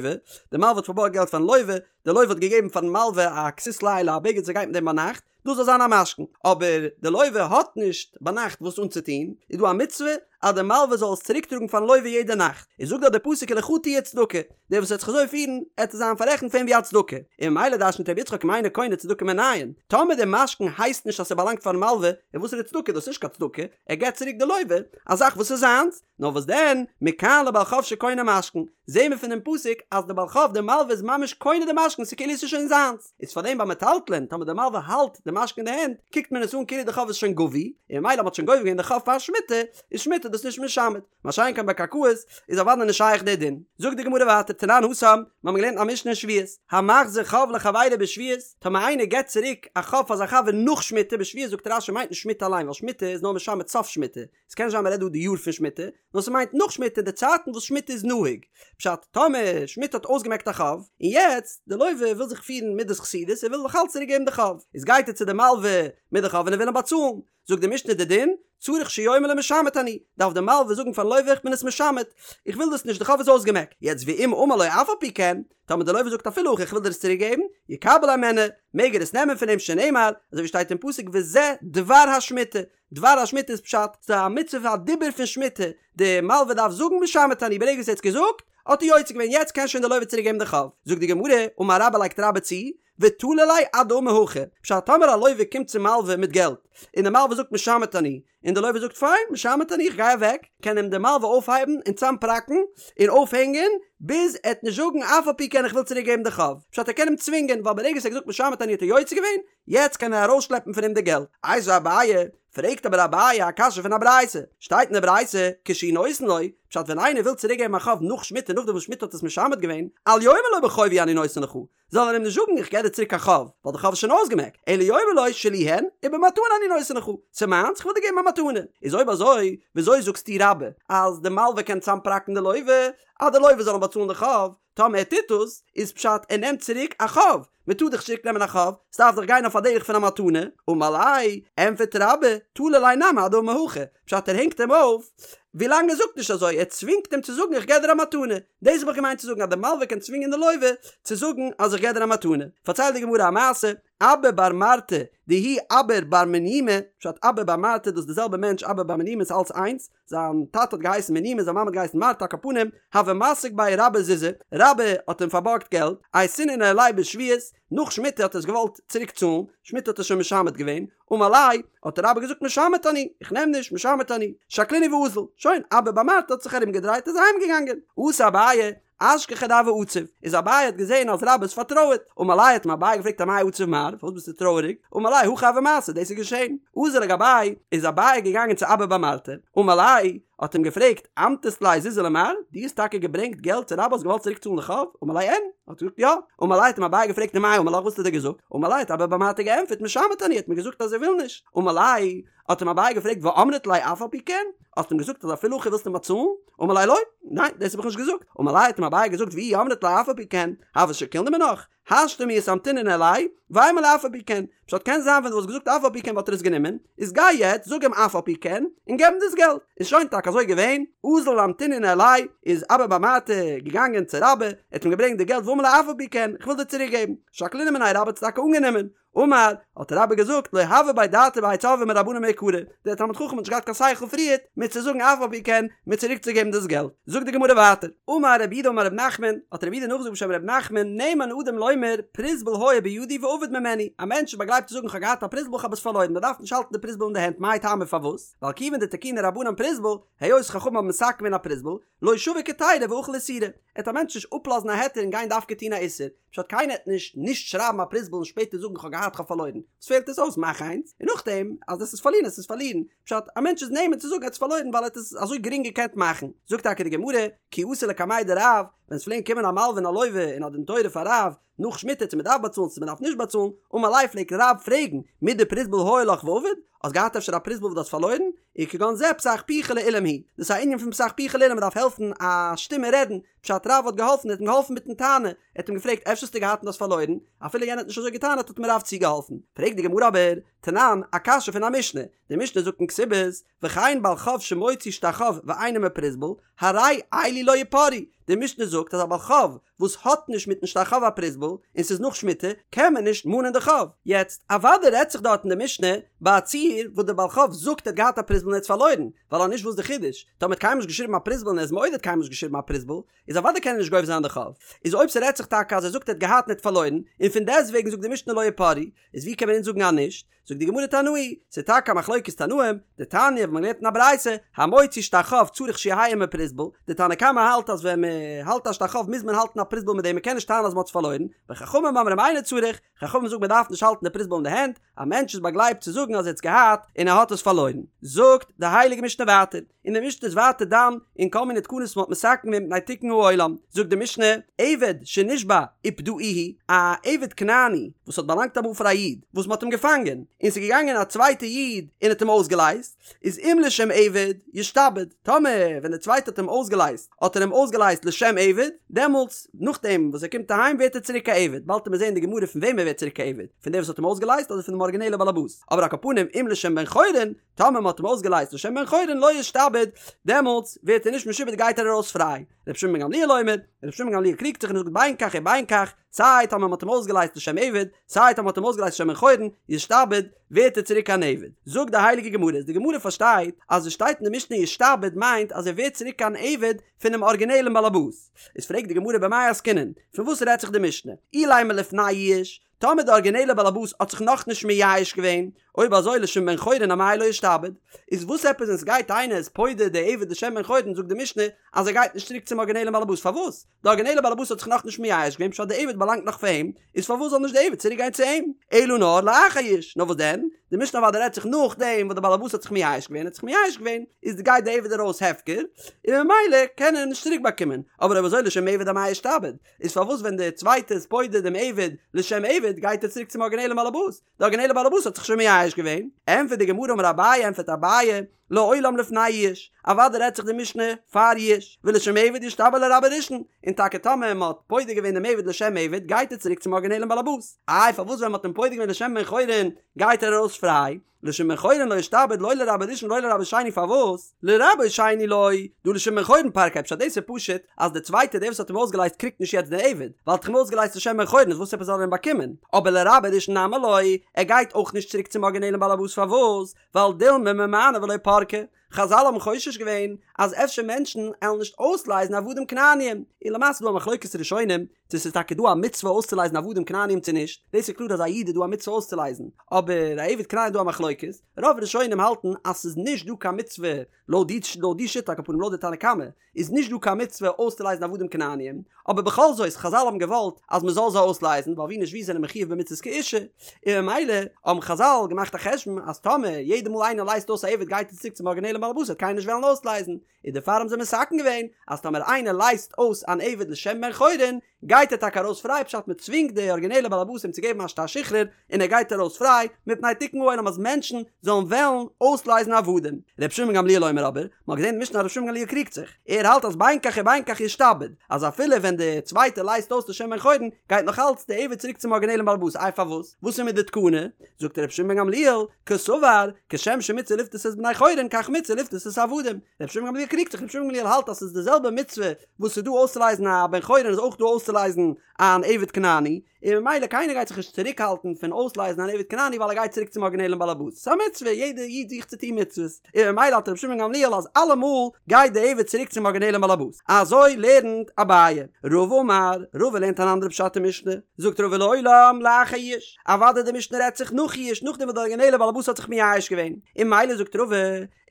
Speaker 1: די מלווה האט פארבארגט געלט פארן לוה, די לוה האט געגעבן פארן מלווה א כסות לילה א בגד וואס ער גייט מיט דעם ביינאכט, דאס זאל זיין א משכון, אבער די לווה האט נישט ביינאכט וואס אנצוטון, איז דא א מצוה אז די מלווה זאל עס צוריק טראגן פארן לווה יעדע נאכט, איז זאגט דארט די פסוק ולך תהיה צדקה, דער וואס וועט זיך אזוי פירן, עט עס זיין פאררעכנט פאר אים ווי א צדקה, און ממילא דרש'נט רבי יצחק אם אינו קונה צדקה מנין, טאמער די משכון הייסט נישט אז ס'באלאנגט פארן מלווה, איז וואס איז די צדקה, דאס איז נישט קיין צדקה, ער געבט צוריק די לווה א זאך וואס איז זיינס, נאר וואס דען, מכאן לבעל חוב שקונה משכון, זעהן מיר פון דעם פסוק אז די בעל חוב די מלווה איז ממש קונה די משכון ס'איז כאילו עס איז שוין זיינס, איז פארדעם ביי מטלטלין טאמער די מלווה האלט די משכון אין די הענט קוקט מען עס אן כאילו די חוב איז שוין גבוי, און ממילא מ'האט שוין גובה געווען די חוב פאר שמיטה, איז שמיטה דאס נישט משמט, מה שאין כן ביי קרקעות איז אוודאי נישט שייך דער דין. זאגט די גמרא ווייטער תנן התם, מיר האבן געלערנט א משנה אין שביעית, המחזיר חוב לחבירו בשביעית, טאמער איינער געבט צוריק א חוב פאר זיין חבר נאך שמיטה בשביעית זאגט רש"י מיינט נישט שמיטה אליין ווייל שמיטה איז נאר משמט סוף שמיטה, עס קען נישט זיין מען רעדט דא די יאר פון שמיטה, נאר ס'מיינט נאך שמיטה די צייטן וואס שמיטה איז נוהג, פשט, טאמער שמיטה האט אויסגעמעקט א חוב, און יעצט די לווה וויל זיך פירן מידת חסידות ער וויל נאך אלץ צוריק געבן די חוב, איז גייט ער צו די מלווה מיט די חוב און ער וויל אים באצאלן, זאגט די משנה די דין, צריך שיאמר לו משמט אני, דארף די מלווה זאגן פארן לווה איך בין עס משמט, איך וויל דאס נישט די חוב איז אויסגעמעקט, יעצט ואם אמר לו אף על פי כן, טאמער די לווה זאגט אפילו הכי איך וויל דיר עס צוריק געבן, יקבל הימנו, מעג ער עס נעמען פון אים שנאמר, אזוי ווי שטייט אין פסוק וזה דבר השמיטה, דבר השמיטה איז פשט, ס'איז א מצוה פון א דיבור פון שמיטה, די מלווה דארף זאגן משמט אני, ברגע וואס ער האט עס געזאגט, האט ער יוצא געווען, יעצט קען שוין די לווה צוריק געבן די חוב. זאגט די גמרא, אמר רבה לייגט רבה צו, ותלי ליה עד דאמר הכי, פשט טאמער א לווה קומט צום מלווה מיט געלט, און די מלווה זאגט משמט אני, און די לווה זאגט פיין, משמט אני, איך גיי אוועק, קען אים די מלווה אויפהייבן און צאמפראקן און אויפהענגען, ביז ער וועט נישט זאגן אף על פי כן איך וויל צוריק געבן די חוב, פשט ער קען אים צווינגען, ווייל ברגע וואס ער האט געזאגט משמט אני האט ער יוצא געווען, יעצט קען ער ארויסשלעפן פון אים די געלט. איתיביה אביי, פרעגט אבער אביי א קשיא פון א ברייתא, שטייט אין די ברייתא, כשהוא נותן לו, פשט ווען איינער וויל צוריק געבן א חוב נאך שמיטה נאכדעם וואס שמיטה האט עס משמט געווען, אל יאמר לו בחובי אני נותן לך, זאל ער אים נישט זאגן איך געב דיר צוריק א חוב, ווייל די חוב איז שוין אויסגעמעקט, אלא יאמר לו שלי הן, ובמתנה אני נותן לך, ס'איז מיינס, כ'וויל דיר געבן א מתנה. איז אויב אזוי, וויאזוי זאגסטו רבה, אז די מלווה קען צאמפראקן די לווה, אז די לווה זאל אים באצאלן די חוב, טאמער ער טוט דאס, איז פשט ער נעמט צוריק א חוב, מען טאר דאך נישט צוריק נעמען א חוב, ס'דארף דאך גיין אויף א דרך פון א מתנה, אמר ליה, ענטפערט רבה, תלי ליה נמי עד דאמר הכי, פשט ער הענגט אים אויף, ווילאנג ער זאגט נישט אזוי, ער צווינגט אים צו זאגן איך געב דיר א מתנה, דאס האב איך געמיינט צו זאגן אז די מלווה קען צווינגען די לווה צו זאגן אז איך געב דיר א מתנה, פארציילט די גמרא א מעשה, אבא בר מרתא דהוא אביר בר מניומי, פשט אבא בר מרתא דאס איז די זעלבע מענטש אבא בר מניומי איז אלץ איינס, זיין טאטע האט געהייסן מניומי זיין מאמע האט געהייסן מרתא על כל פנים הוה מסיק ביה רבה זוזי, רבה האט אים פארבארגט געלט, אייתינהו ניהליה בשביעית, נאך שמיטה האט ער עס געוואלט צוריק צאלן, שמיטה האט ער שוין משמט געווען, אמר ליה, האט רבה געזאגט משמט אני, איך נעם נישט, משמט אני, שקלינהו ואזיל, שוין, אבא בר מרתא האט זיך ארום געדרייט איז אהיים געגאנגען, אתא אביי, אשכחיה דהוה עציב, איז אביי האט געזען אז רבה איז פארטרויערט, אמר ליה האט אים אביי געפרעגט אמאי עציב מר, פארוואס ביסטו טרויעריג, אמר ליה הכי הוה מעשה, דאס איז געשען, אזל לגביה, איז אביי געגאנגען צו אבא בר מרתא, אמר ליה, האט אים געפרעגט, אמטית ליה זוזי למר, דו האסט טאקע געברענגט געלט צו רבה האסט געוואלט צוריק צאלן די חוב, אמר ליה אין, האט ער געזאגט יא, אמר ליה האט אים אביי געפרעגט ומאי אמר לך וואס האט ער דיר געזאגט, אמר ליה האט אבא בר מרתא געענטפערט משמט אני האט מיר געזאגט אז ער וויל נישט, אמר ליה, האט אים אביי געפרעגט ואמרת ליה אף על פי כן? האסט אים געזאגט אז אפילו הכי ווילסטו אים באצאלן? אמר ליה לא, ניין דאס האב איך נישט געזאגט, אמר ליה האט אים אביי געזאגט ואי אמרת ליה אף על פי כן, הוה שקילנא מינך, השתא מיהת אמטינא ניהליה, ואימא ליה אף על פי כן, פשט קען זיין ווען דו וואלסט געזאגט אף על פי כן וואלט ער עס גענומען, איז גיי יעצט זאג אים אף על פי כן, און געב אים דאס געלט, איז שוין טאקע אזוי געווען, אזל אמטינא ניהליה, איז אבא בר מרתא געגאנגען צו רבה, ער האט אים געברענגט די געלט ואמר ליה אף על פי כן, איך וויל דיר צוריק געבן, שקלינהו מיניה רבה האט עס טאקע אנגענומען, אמר, האט רבה געזאגט, לא הוה ביה דעתא בהאי צורבא מרבנן מעיקרא, דער תלמיד חכם האט נישט געהאט קיין שכל פריערט מיר צו זאגן אף על פי כן, מיר צוריק צו געבן דאס געלט. זאגט די גמרא ווייטער, אמר רב יהודה אמר רב נחמן, האט רב יהודה נאכגעזאגט בשם רב נחמן, נאמן אדם לומר, פרוזבול היה בידי ואבד ממני, א מענטש איז באגלייבט צו זאגן כ'האב געהאט א פרוזבול כ'האב עס פארלוירן, מען דארף נישט האלטן די פרוזבול אין די הענט, מאי טעמא פארוואס? ווייל כיוון דתקינו רבנן פרוזבול, היות חכמים האבן מתקן געווען א פרוזבול, לא שביק היתירא ואכיל איסורא, עט א מענטש נישט אפלאזן א היתר און גיין דווקא טון א איסור, פשט קיינער עט נישט נישט שרייבן א פרוזבול און שפעטער זאגן כ'האב געהאט כ'האב פארלוירן, וואס פעלט עס אויס מאך איינס, און נאכדעם אז עס איז פארלירן עס איז פארלירן, פשט א מענטש איז נאמן צו זאגן ער האט עס פארלוירן ווייל ער האט עס אזוי גרינג געקענט מאכן, זאגט טאקע די גמרא, כי אתו לקמיה דרב, ווען עס פלעגן קומען א מלווה און א לווה אין א דין תורה פאר רב, נאך שמיטה צו מען דארף באצאלן צו מען דארף נישט באצאלן, אמר ליה פלעגט רב פרעגן, מידי פרוזבול היה לך ואבד, האסט געהאט אפשר א פרוזבול וואס דו האסט פארלוירן? וכגון זה פתח פיך לאולם הוא, דאס איז א ענין פון פתח פיך לאולם מען דארף העלפן א שטומער רעדן, פשט רב האט געהאלפן, ער האט אים געהאלפן מיטן טענה, ער האט אים געפרעגט אפשר האסטו געהאט און האסט פארלוירן, אפילו יענער האט נישט אזוי געטענה'ט האט אים רב צוגעהאלפן. פרעגט די גמרא אבער, תנן, א קשיא פון א משנה, די משנה זאגט אין כתובות, וכן בעל חוב שמוציא שטר חוב ואין עמו פרוזבול, הרי אלו לא יפרעו, די משנה זאגט אז א בעל חוב וואס האט נישט מיטן שטר חוב א פרוזבול, און ס'איז נאך שמיטה, קען מען נישט מאנען די חוב. יעצט, אוודאי רעדט זיך דארט אין די משנה ביי א ציור וואס דער בעל חוב זאגט ער האט געהאט א פרוזבול און ער האט עס פארלוירן, ווייל אז נישט וואס די חידוש? טאמער האט קיינמאל נישט געשריבן א פרוזבול און ער איז מודה ער האט קיינמאל נישט געשריבן א פרוזבול, איז אוודאי קען ער נישט גובה זיין די חוב. איז אויב ס'רעדט זיך טאקע אז ער זאגט ער האט געהאט און ער האט פארלוירן, און פון דעסטוועגן זאגט די משנה לא יפרעו, איז ווי קען מען אונז זאגן אז נישט? זאגט די גמרא תנאי, ס'איז טאקע א מחלוקת תנאים, דתניא וואס מ'האט געלערנט אין א ברייתא, המוציא שטר חוב צריך שיהא עמו פרוזבול, די תנא קמא האלט אז ווען מ'האלט א שטר חוב מוז מען האלטן א פרוזבול מיט דעם מ'קען נישט טענה'ן אז מ'האט עס פארלוירן, וחכמים אומרים אינו צריך, חכמים זאגן מ'דארף נישט האלטן די פרוזבול אין די הענט, א מענטש איז באגלייבט צו זאגן אז ער האט עס געהאט און ער האט עס פארלוירן. זאגט די הייליגע משנה ווייטער, און די משנה איז ווייטער דן אין כל מיני תקנות וואס מ'האט מתקן געווען מפני תיקון העולם, זאגט די משנה, עבד שנשבה ופדאוהו, א עבד כנעני וואס האט באלאנגט אמאל פאר א איד, וואס מ'האט אים געפאנגען, און ס'איז געגאנגען א צווייטע איד און האט אים אויסגעלייזט, איז אם לשם עבד, ישתעבד, טאמער ווען דער צווייטער האט אים אויסגעלייזט, האט ער אים אויסגעלייזט לשם עבד, דעמאלטס, נאכדעם וואס ער קומט אהיים ווערט ער צוריק א עבד, באלד וועט מען זען אין די גמרא פון וועם ער ווערט צוריק א עבד, פון דעם וואס האט אים אויסגעלייזט אדער פון דעם ארגינעלע באלעבאס, אבער על כל פנים אם לשם בן חורין, טאמער מען האט אים אויסגעלייזט לשם בן חורין לא ישתעבד, דעמאלטס ווערט ער נישט משועבד גייט ער ארויס פריי. רבי שמעון בן גמליאל אומר, רבי שמעון בן גמליאל קריגט זיך און זאגט בין כך ובין כך, סיי טאמער מען האט אים אויסגעלייזט לשם עבד, סיי טאמער מען האט אים אויסגעלייזט לשם בן חורין, ישתעבד, ווערט ער צוריק אן עבד. זאגט די הייליגע גמרא, איז די גמרא פארשטייט אז עס שטייט אין די משנה ישתעבד מיינט אז ער ווערט צוריק אן עבד פונעם ארגינעלן באלעבאס. איז פרעגט די גמרא במאי עסקינן, פון וואס רעדט זיך די משנה? אילימא לפני יאוש, טאמער די ארגינעלע באלעבאס האט זיך נאכנישט מייאש געווען, אויב אזוי לשם בן חורין אמאי לא ישתעבד? איז וואס עפעס ווען סגייט איינער איז פודה די עבד לשם בן חורין זאגט די משנה אז ער גייט נישט צוריק צום ארגינעלן באלעבאס פארוואס? די ארגינעלע באלעבאס האט זיך נאכנישט מייאש געווען פשט די עבד באלאנגט נאך פאר אים, איז פארוואס זאל נישט די עבד צוריק גיין צו אים? אלא נאר לאחר יאוש, נאר וואס דען? די משנה אוודאי רעדט זיך נאכדעם וואס די באלעבאס האט זיך מייאש געווען האט זיך מייאש געווען איז גייט די עבד ארויס הפקר און ממילא קען ער אים נישט צוריק באקומען, אבער אויב אזוי לשם עבד אמאי ישתעבד? איז פארוואס ווען די צווייטע איז פודה דעם עבד לשם עבד גייט ער צוריק צום ארגינעלן באלעבאס? די ארגינעלע באלעבאס האט זיך שוין מייאש געווען. ענטפערט די גמרא אמר אביי ענטפערט אביי לעולם לפני יאוש, אוודאי רעדט זיך די משנה פאר יאוש, ולשם עבד ישתעבד לרבו ראשון, און טאקע טאמער מען האט פודה געווען דעם עבד לשם עבד גייט ער צוריק צום ארגינעלן באלעבאס, איי פארוואס ווען מען האט אים פודה געווען לשם בן חורין גייט ער ארויס פריי? לשם בן חורין לא ישתעבד לא לרבו ראשון ולא לרבו שני פארוואס? לרבו שני לא, דהא לשם בן חורין פרקיה פשט דאס איז פשוט אז די צווייטע דער וואס האט אים אויסגעלייזט קריגט נישט יעצט די עבד ווייל האט אים אויסגעלייזט לשם בן חורין איז וואס עפעס זאל ער אים באקומען אבער לרבו ראשון נמי לא ער גייט אויך נישט צוריק צום ארגינעלן באלעבאס פארוואס? ווייל דילמא ממאני ולא פרקי חזל האבן חושש געווען אז אפשר מענטשן עלן נישט אויסלייזן עבדים כנעניים, און למעשה איז דא א מחלוקת ראשונים צו ס'איז טאקע דא א מצוה אויסצולייזן עבדים כנעניים צו נישט, דאס איז קלאר אז א איד איז דא א מצוה אויסצולייזן, אבער א עבד כנעני איז דא א מחלוקת, רוב ראשונים האלטן אז ס'איז נישט דא קיין מצוה לויט די לויט די שיטה על כל פנים לויט די תנא קמא איז נישט דא קיין מצוה אויסצולייזן עבדים כנעניים, אבער בכל זאת חזל האבן געוואלט אז מען זאל זיי אויסלייזן ווייל ווי נישט ווי זענען מחויב במצוות כאישה, און ממילא האבן חזל געמאכט א חשבון אז טאמער יעדע מאל איינער לייזט אויס א עבד גייט ער צוריק צום ארגינעלן בעל הבית וועט קיינער נישט וועלן אויסלייזן, און דערפאר האבן זיי מתקן געווען אז טאמער איינער לייזט אויס אן עבד לשם בן חורין גייט ער טאקע ארויס פריי פשט מען צווינגט די ארגינעלע בעל הבית אים צו געבן א שטר שחרור און ער גייט ארויס פריי מפני תיקון העולם אז מענטשן זאלן וועלן אויסלייזן עבדים. ר' שמעון גמליאל אומר אבער, מען האט געזען אין די משנה אז ר' שמעון גמליאל קריגט זיך, ער האלט אז בין כך ובין כך ישתעבד, אז אפילו ווען די צווייטע לייזט אויס לשם בן חורין גייט נאך אלץ די עבד צוריק צום ארגינעלן בעל הבית, איי פארוואס? וואס איז מיט די תקנה? זאגט ר' שמעון בן גמליאל, קסבר, כשם שמצוה לפדות את בני חורין כך מצוה לפדות את העבדים. ר' שמעון גמליאל קריגט זיך, ר' שמעון גמליאל האלט אז ס'איז די זעלבע מצוה וואס ס'איז דא אויסצולייזן א בן חורין איז אויך דא אויסצולייזן אן עבד כנעני, און ממילא קיינער גייט זיך נישט צוריקהאלטן פון אויסלייזן אן עבד כנעני ווייל ער גייט צוריק צום ארגינעלן באלעבאס, ס'איז א מצוה, יעדער איד זוכט צו טון מצוות, און ממילא האלט רבי שמעון גמליאל אז אלעמאל גייט די עבד צוריק צום ארגינעלן באלעבאס. אזוי לערנט אביי. רבא אמר, רבא לערנט אן אנדערע פשט אין משנה, זאגט רבא לעולם לאחר יאוש, אוודאי די משנה רעדט זיך נאך יאוש נאכדעם וואס די ארגינעלע באלעבאס האט זיך מייאש געווען, און ממילא זאגט רבא,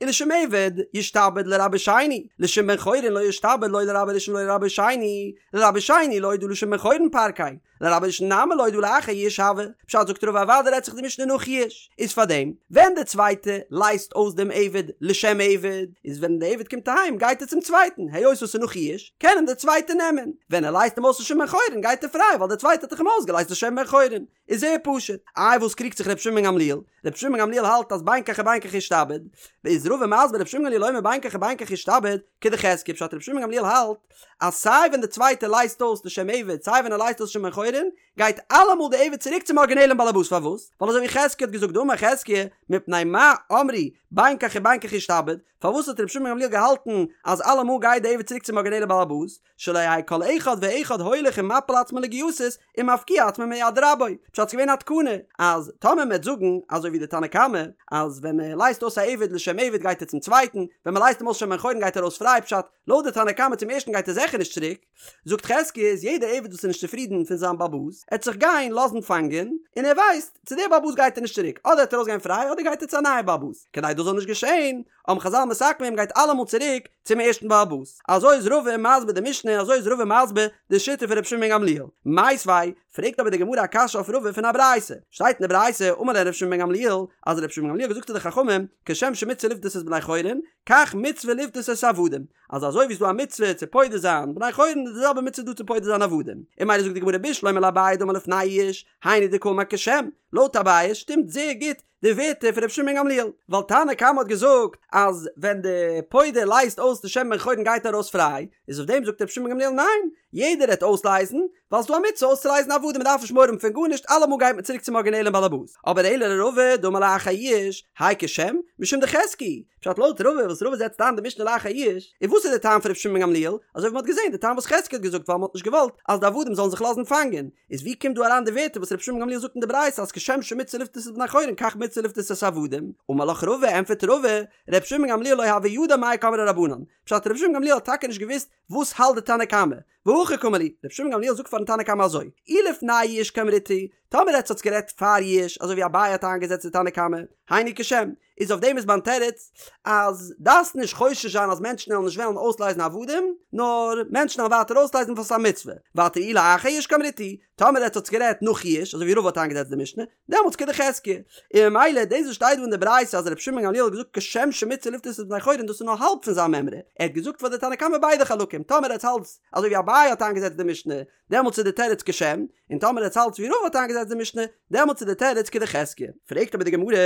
Speaker 1: ולשם עבד ישתעבד לרבו שני, לשם בן חורין לא ישתעבד לא לרבו ראשון ולא לרבו שני, לרבו שני לא דהא לשם בן חורין פרקיה, לרבו ראשון נמי לא דהא לאחר יאוש הוי, פשט זאגט רבא אוודאי רעדט זיך די משנה נאך יאוש, איז פארדעם ווען די צווייטע לייזט אויס דעם עבד לשם עבד, איז ווען די עבד קומט אהיים גייט ער צום צווייטן, היות עס איז נאך יאוש, קען אים די צווייטע נעמען, ווען ער לייזט אים אויס לשם בן חורין גייט ער פריי ווייל די צווייטע האט דאך אים אויסגעלייזט לשם בן חורין. איז זייער פשוט. איי וואס קריגט זיך ר' שמעון בן גמליאל? ר' שמעון בן גמליאל האלט אז בין כך ובין כך ישתעבד, איז רבא מסביר ר' שמעון בן גמליאל אומר בין כך ובין כך ישתעבד, כדחזקיה פשט ר' שמעון בן גמליאל האלט אז סיי ווען די צווייטע לייזט אויס לשם עבד סיי ווען ער לייזט אויס לשם בן חורין גייט אלעמאל די עבד צוריק צום ארגינעלען באלעבאס פארוואס? ווייל אזוי ווי חזקיה האט געזאגט דאמר חזקיה מפני מה אמרו בין כך ובין כך ישתעבד פארוואס האט ר' שמעון בן גמליאל געהאלטן אז אלעמאל גייט די עבד צוריק צום ארגינעלע באלעבאס שלא יהא כל אחד ואחד הולך ומפיל עצמו לגייסות ומפקיע עצמו מיד רבו, פשט ס'געווען א תקנה אז טאמער מ'עט זאגן אזוי ווי די תנא קמא אז ווען מ'לייזט אויס א עבד לשם עבד גייט ער צום צווייטן, ווען מ'לייזט אים אויס לשם בן חורין גייט ער ארויס פריי פשט לויט די תנא קמא צום ערשטן גייט ער זיכער נישט צוריק, זאגט חזקיה איז יעדע עבד וואס איז נישט צופרידן פון זיין בעל הבית עט זיך גיין לאזן פאנגען און ער ווייסט צו דער בעל הבית גייט ער נישט צוריק אדער עט ער ארויסגיין פריי אדער גייט ער צו א נייע בעל הבית כדי דאס זאל נישט געשען האבן חזל מתקן געווען מ'גייט אלעמאל צוריק צום ערשטן בעל הבית. אזוי איז רבא מסביר די משנה און אזוי איז רבא מסביר די שיטה פון רבי שמעון בן גמליאל. מיתיבי, פרעגט אבער די גמרא א קשיא אויף רבא פון א ברייתא. שטייט אין די ברייתא, אמר להם רבי שמעון בן גמליאל, אז רבי שמעון בן גמליאל האט געזאגט צו די חכמים, כשם שמצוה לפדות את בני חורין, כך מצוה לפדות את העבדים. אז אזוי ווי ס'איז דא א מצוה צו פודה זיין בני חורין איז די זעלבע מצוה דא צו פודה זיין עבדים. און ממילא זאגט די גמרא בשלמא לאביי דאמר לפני יאוש, היינו דקאמר כשם, לויט אביי שטימט זייער גוט די ווערטער פון רבי שמעון בן גמליאל, ווייל תנא קמא האט געזאגט אז ווען די פודה לייזט אויס לשם בן חורין גייט ער ארויס פריי, איז אויף דעם זאגט רבי שמעון בן גמליאל ניין, יעדער העט אויסלייזן, ווייל ס'דא א מצוה אויסצולייזן עבדים מ'דארף נישט מורא האבן פון גארנישט אלעמאל גייט מען צוריק צום ארגינעלען באלעבאס, אבער אלא לרבא דאמר לאחר יאוש, האי כשם, משום דחזקיה, פשט לויט רבא וואס רבא זעצט איין די משנה לאחר יאוש, און וואס איז די טעם פון רבי שמעון בן גמליאל, אזוי ווי מ'האט געזען די טעם וואס חזקיה האט געזאגט ווייל מ'האט נישט געוואלט אז די עבדים זאלן זיך לאזן פאנגען, איז ווי קומט דא אריין די ווערטער וואס רבי שמעון בן גמליאל זאגט אין די ברייתא אז כשם שמצוה לפדות את בני חורין כך מצוה לפדות את העבדים? אמר לך רבא, ענטפערט רבא, רבי שמעון בן גמליאל לא הוה ידע מאי קאמרי רבנן, פשט רבי שמעון בן גמליאל האט טאקע נישט געוואוסט וואס האלט די תנא קמא, והכי קאמר להו, רבי שמעון בן גמליאל זאגט פארן תנא קמא אזוי, אי לפני יאוש קאמריתו, טאמער עטס האטס גערעדט פאר יאוש אזוי ווי אביי האט איינגעזעצט די תנא קמא, היינו כשם, איז אויף דעם איז מיין תירוץ אז דארפסט נישט חושש זיין אז מענטשן וועלן נישט וועלן אויסלייזן עבדים, נאר מענטשן וועלן ווייטער אויסלייזן ווייל ס'איז א מצוה. ווייטער אי לאחר יאוש קאמריתו, טאמער עטס האטס גערעדט נאך יאוש, אזוי ווי רבא האט איינגעזעצט די משנה, דעמאלטס כדחזקיה. און ממילא דאס וואס שטייט דא אין די ברייתא אז רבי שמעון בן גמליאל האט געזאגט כשם שמצוה לפדות את בני חורין דאס איז נאר האלב פון זיין מימרא, ער האט געזאגט פאר די תנא קמא ביידע חלקים, טאמער עטס האלטס אזוי ווי אביי האט איינגעזעצט די משנה, דעמאלטס איז די תירוץ כשם, און טאמער עטס האלטס ווי רבא האט איינגעזעצט די משנה, דעמאלטס איז די תירוץ כדחזקיה. פרעגט אבער די גמרא,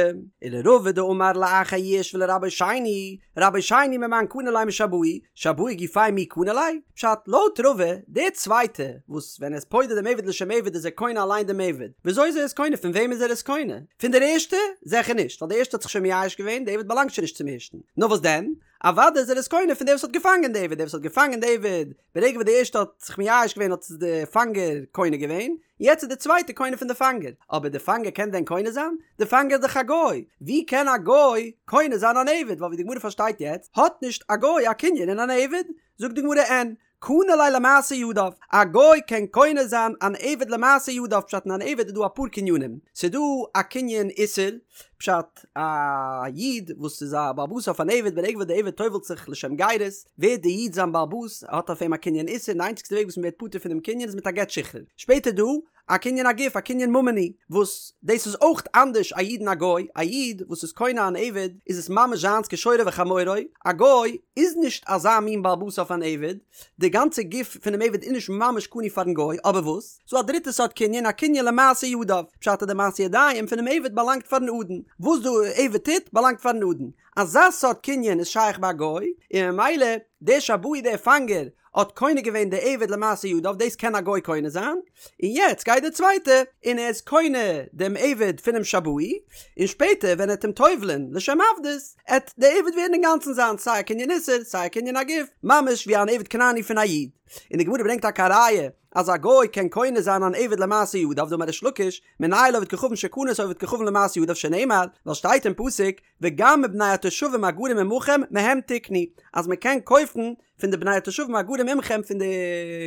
Speaker 1: ולרבא דאמר לאחר יאוש ולרבו שני, רבו שני ממאן קני ליה משבאי, שבאי גופיה מי קני ליה? פשט, לויט רבא, דער צווייטע, וואס ווען ער איז פודה דעם עבד לשם עבד איז ער קונה אליין דעם עבד, וויאזוי איז ער עס קונה פון וועם איז ער עס קונה? פון דער ערשטע? זעכער נישט, ווייל דער ערשטע האט זיך שוין מייאש געווען, דער עבד באלאנגט שוין נישט צום ערשטן. נאר וואס דען? אוודאי איז ער עס קונה פון דער וואס האט געפאנגען די עבד, דער וואס האט געפאנגען די עבד, ברגע וואס די ערשטע האט זיך מייאש געווען האט עס די פאנגער קונה געווען, יעצט איז די צווייטע קונה פון די פאנגער, אבער די פאנגער קען דען קונה זיין? די פאנגער איז דאך א גוי, ווי קען א גוי קונה זיין אן עבד, ווייל ווי די גמרא פארשטייט יעצט האט נישט א גוי א קנין אין אן עבד, זאגט די גמרא אין, קנה ליה למעשה ידיו, א גוי קען קונה זיין אן עבד למעשה ידיו, פשט אין אן עבד איז דא אפאר קנינים, ס'איז דא א קנין איסור, פשט א איד וואס איז א בעל הבית אויף אן עבד ברגע וואס די עבד טובל'ט זיך לשם גירות, ווערט די איד זיין בעל הבית, ער האט אויף אים א קנין איסור, און די איינציגסטע וועג וואס מען ווערט פטור פון דעם קנין איז מיט א גט שחרור. שפעטער דא א קנין הגוף, א קנין ממוני, וואס דאס איז אויך אנדערש א איד און א גוי, א איד וואס איז קונה אן עבד איז עס ממש זיינס כשורו וחמורו, א גוי איז נישט אזא מין בעל הבית אויף אן עבד, די גאנצע גוף פונעם עבד איז נישט ממש קנוי פארן גוי, אבער וואס? ס'דא א דריטע סארט קנין, א קנין למעשה ידיו, פשט אז די מעשה ידיים פונעם עבד באלאנגט פארן אדון, וואס די עבד טוט באלאנגט פארן אדון, אזא סארט קנין איז שייך ביי א גוי, און ממילא דער שבאי דער פאנגער האט קונה געווען די עבד למעשה ידיו, דאס קען א גוי קונה זיין, און יעצט גייט דער צווייטער און ער איז קונה דעם עבד פונעם שבאי, און שפעטער ווען ער וועט אים טובל'ען לשם עבדות, עט דער עבד ווערן אינגאנצן זיינס, סיי א קנין איסור, סיי א קנין הגוף, ממש ווי אן עבד כנעני פון א איד. און די גמרא ברענגט טאקע א ראיה אז א גוי קען קונה זיין אן עבד למעשה ידיו, דאמר ריש לקיש, מנין לעובד כוכבים שקנה את העובד כוכבים למעשה ידיו שנאמר, ווייל שטייט אין פסוק, וגם מבני התושבים הגרים עמכם מהם תקנו, אז מען קען קויפן פון די בני התושבים הגרים עמכם פון די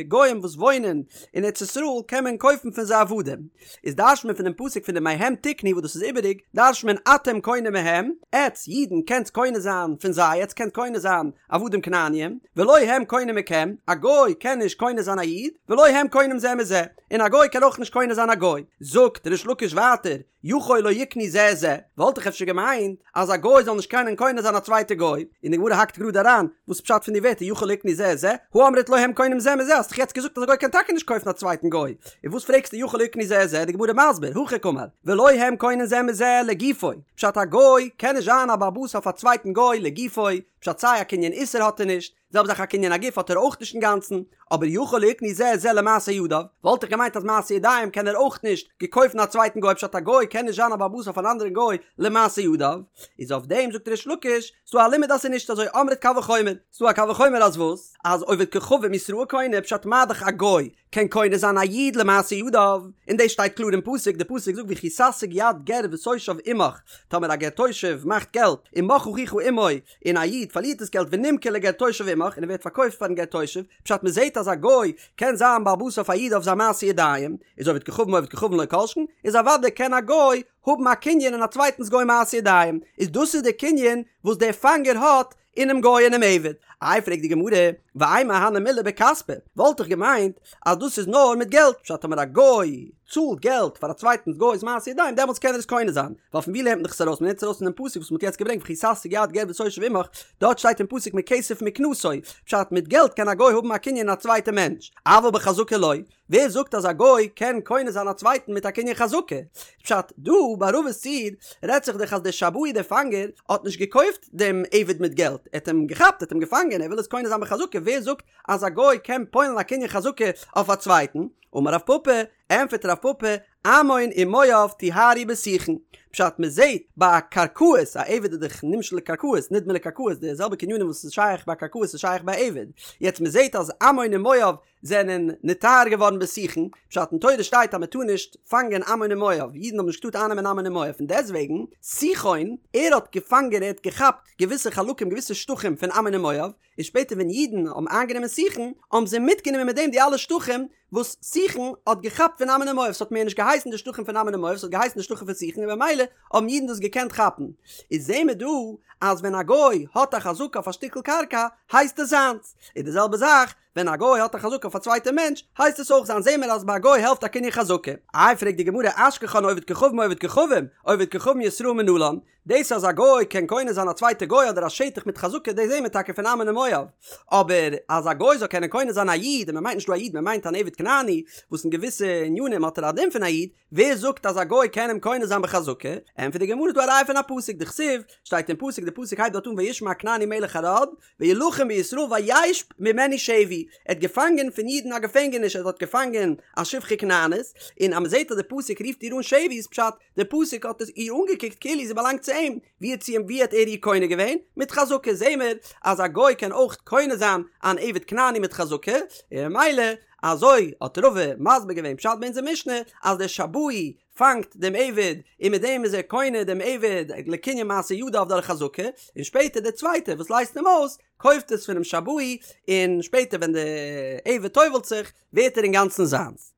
Speaker 1: גוים וואס וואוינען אין ארץ ישראל קען מען קויפן פון זיי עבדים, איז דרש'ט מען פונעם פסוק פון די מהם תקנו וואס דאס איז איבעריג, דרש'ט מען אתם קונים מהם, עטץ אידן קענטס קונה זיין פון זיי, עטץ קענט קונה זיין עבדים כנעניים, ולא הם קונים מכם, א גוי קען נישט קונה זיין א איד, ולא הם קונים זה מזה, און א גוי קען אויך נישט קונה זיין א גוי. זאגט ריש לקיש ווייטער, יכול לא יקנו זה את זה, וואלט איך אפשר געמיינט אז א גוי זאל נישט קענען קונה זיין א צווייטע גוי, און די גמרא האקט גראד אריין, וואס פשט פון די ווערטער יכול יכול ליקני זה את זה, הא אמרת לא הם קונים זה מזה, האסט דאך יעצט געזאגט אז א גוי קען טאקע נישט קויפן א צווייטן גוי, און וואס פרעגסטו יכול ליקני זה את זה, די גמרא מסביר, הכי קאמר, ולא הם קונים זה מזה לגופו, פשט א גוי קען נישט זיין א בעל הבית אויף א צווייטן גוי לגופו, פשט סיי א קנין איסור האט ער נישט, זעלבע זאך א קנין הגוף האט ער אויך נישט אינגאנצן, אבער יכול ליקני זה את זה למעשה ידיו, וואלט איך געמיינט אז מעשה ידיים קען ער אויך נישט געקויפן א צווייטן גוי פשט א גוי קען נישט זיין א בעל הבית אויף אן אנדערן גוי למעשה ידיו, איז אויף דעם זאגט ריש לקיש, ס'דא א לימוד אז ס'איז נישט אזוי אמרת קל וחומר, ס'דא א קל וחומר אז וואס? אז עובד כוכבים ישראל קונה פשט מה דאך א גוי קען קונה זיין א איד למעשה ידיו, און דאס שטייט קלאר אין פסוק, די פסוק זאגט וכי תשיג יד גר ותושב עמך, טאמער א גר תושב מאכט געלט ומך אחיך עמו, און א איד פארלירט דאס געלט ונמכר לגר תושב עמך און ער ווערט פארקויפט פארן גר תושב, פשט מען זעט אז א גוי קען זיין בעל הבית אויף א איד אויף זיין מעשה ידיים, איז עובד כוכבים עובד כוכבים לא כל שכן, איז אוודאי קען א גוי האבן א קנין אין א צווייטנס גוי מעשה ידיים, איז דאס איז די קנין וואס דער פאנגער האט אינעם גוי אינעם עבד. איי פרעגט די גמרא, ואימא הני מילי בכספא, וואלט איך געמיינט אז דאס איז נאר מיט געלט, פשט טאמער א גוי צאלט געלט פאר א צווייטנס גוי'ס מעשה ידיים דעמאלטס קען ער עס קונה זיין, ווייל פון ווי לערנט מען דאך עס ארויס, מען לערנט עס ארויס פונעם פסוק וואס מען האט יעצט געברענגט וכי תשיג יד גר ותושב עמך, דארט שטייט אין פסוק מכסף מקנתו, פשט מיט געלט קען א גוי האבן א קנין אין א צווייטע מענטש, אבל בחזקה לא, ווער זאגט אז א גוי קען קונה זיין א צווייטן מיט א קנין חזקה? פשט, דא ביי רבא'ס ציור רעדט זיך דאך אז דער שבאי דער פאנגער האט נישט געקויפט דעם עבד מיט געלט, ער האט אים געכאפט, ער האט אים געפאנגען, ער וויל עס קונה זיין בחזקה, ווער זאגט אז א גוי קען פועל'ן א קנין חזקה אויף א צווייטן? אמר רב פפא, ענפערט רב פפא, עמון ומואב טוהרו בסיחון. פשט, מען זעט ביי קרקעות, א עבד איז דאך נמשל לקרקעות, נדמה לקרקעות, די זעלבע קנינים וואס איז שייך ביי קרקעות איז שייך ביי עבד, יעצט מען זעט אז עמון און מואב זענען נטהר געווארן בסיחון, פשט אין תורה שטייט אז מען טאר נישט פאנגען עמון און מואב, אידן האבן נישט געטארט אייננעמען עמון און מואב, פון דעסטוועגן סיחון, ער האט געפאנגען ער האט געכאפט געוויסע חלקים געוויסע שטחים פון עמון און מואב, און שפעטער ווען אידן האבן איינגענומען סיחון, האבן זיי מיטגענומען מיט דעם די אלע שטחים וואס סיחון האט געכאפט פון עמון און מואב, ס'האט מער נישט געהייסן די שטחים פון עמון און מואב, ס'האט געהייסן די שטחים פון סיחון און במילא האבן אידן דאס געקענט כאפן. איז זעהן מיר דא אז ווען א גוי האט א חזקה אויף א שטיקל קרקע הייסט עס זיינס, און די זעלבע זאך ווען א גוי האט א חזקה אויף א צווייטע מענטש, הייסט עס אויך זיינס, זעהן מיר אז ביי א גוי העלפט א קנין חזקה. איי פרעגט די גמרא אשכחן עובד כוכבים עובד כוכבים, עובד כוכבים ישראל מנלן, דאס אז א גוי קען קונה זיין א צווייטע גוי אדער א שטח מיט חזקה דאס זעהן מיר טאקע פון עמון און מואב, אבער אז א גוי זאל קענען קונה זיין א איד, און מען מיינט נישט דא א איד מען מיינט אן עבד כנעני וואס אין געוויסע ענינים האט ער א דין פון א איד, ווער זאגט אז א גוי קען אים קונה זיין בחזקה? ענטפערט די גמרא ס'דא א ראיה פון א פסוק, דכתיב, שטייט אין פסוק, די פסוק הייבט דארט אן וישמע הכנעני מלך ערד, וילחם בישראל וישב ממנו שבי, ער האט געפאנגען פון אידן א געפענגעניש, ער האט געפאנגען א שפחה כנענית, און אז מען זעט אז די פסוק רופט איר אן שבי איז פשט, די פסוק האט עס איר אנגעקוקט כאילו זי באלאנגט צו אים, ווי האט זי אים ווי האט ער איר קונה געווען? מיט חזקה, זעהן מיר אז א גוי קען אויך קונה זיין אן עבד כנעני מיט חזקה, און ממילא אזוי האט רבא מסביר געווען פשט ביי אונזער משנה אז דער שבאי פאנגט דעם עבד און מיט דעם איז ער קונה דעם עבד לקנין מעשה ידיו דורך חזקה, און שפעטער דער צווייטער וואס לייזט אים אויס קויפט עס פונעם שבאי און שפעטער ווען דער עבד טובל'ט זיך ווערט ער אינגאנצן זיינס.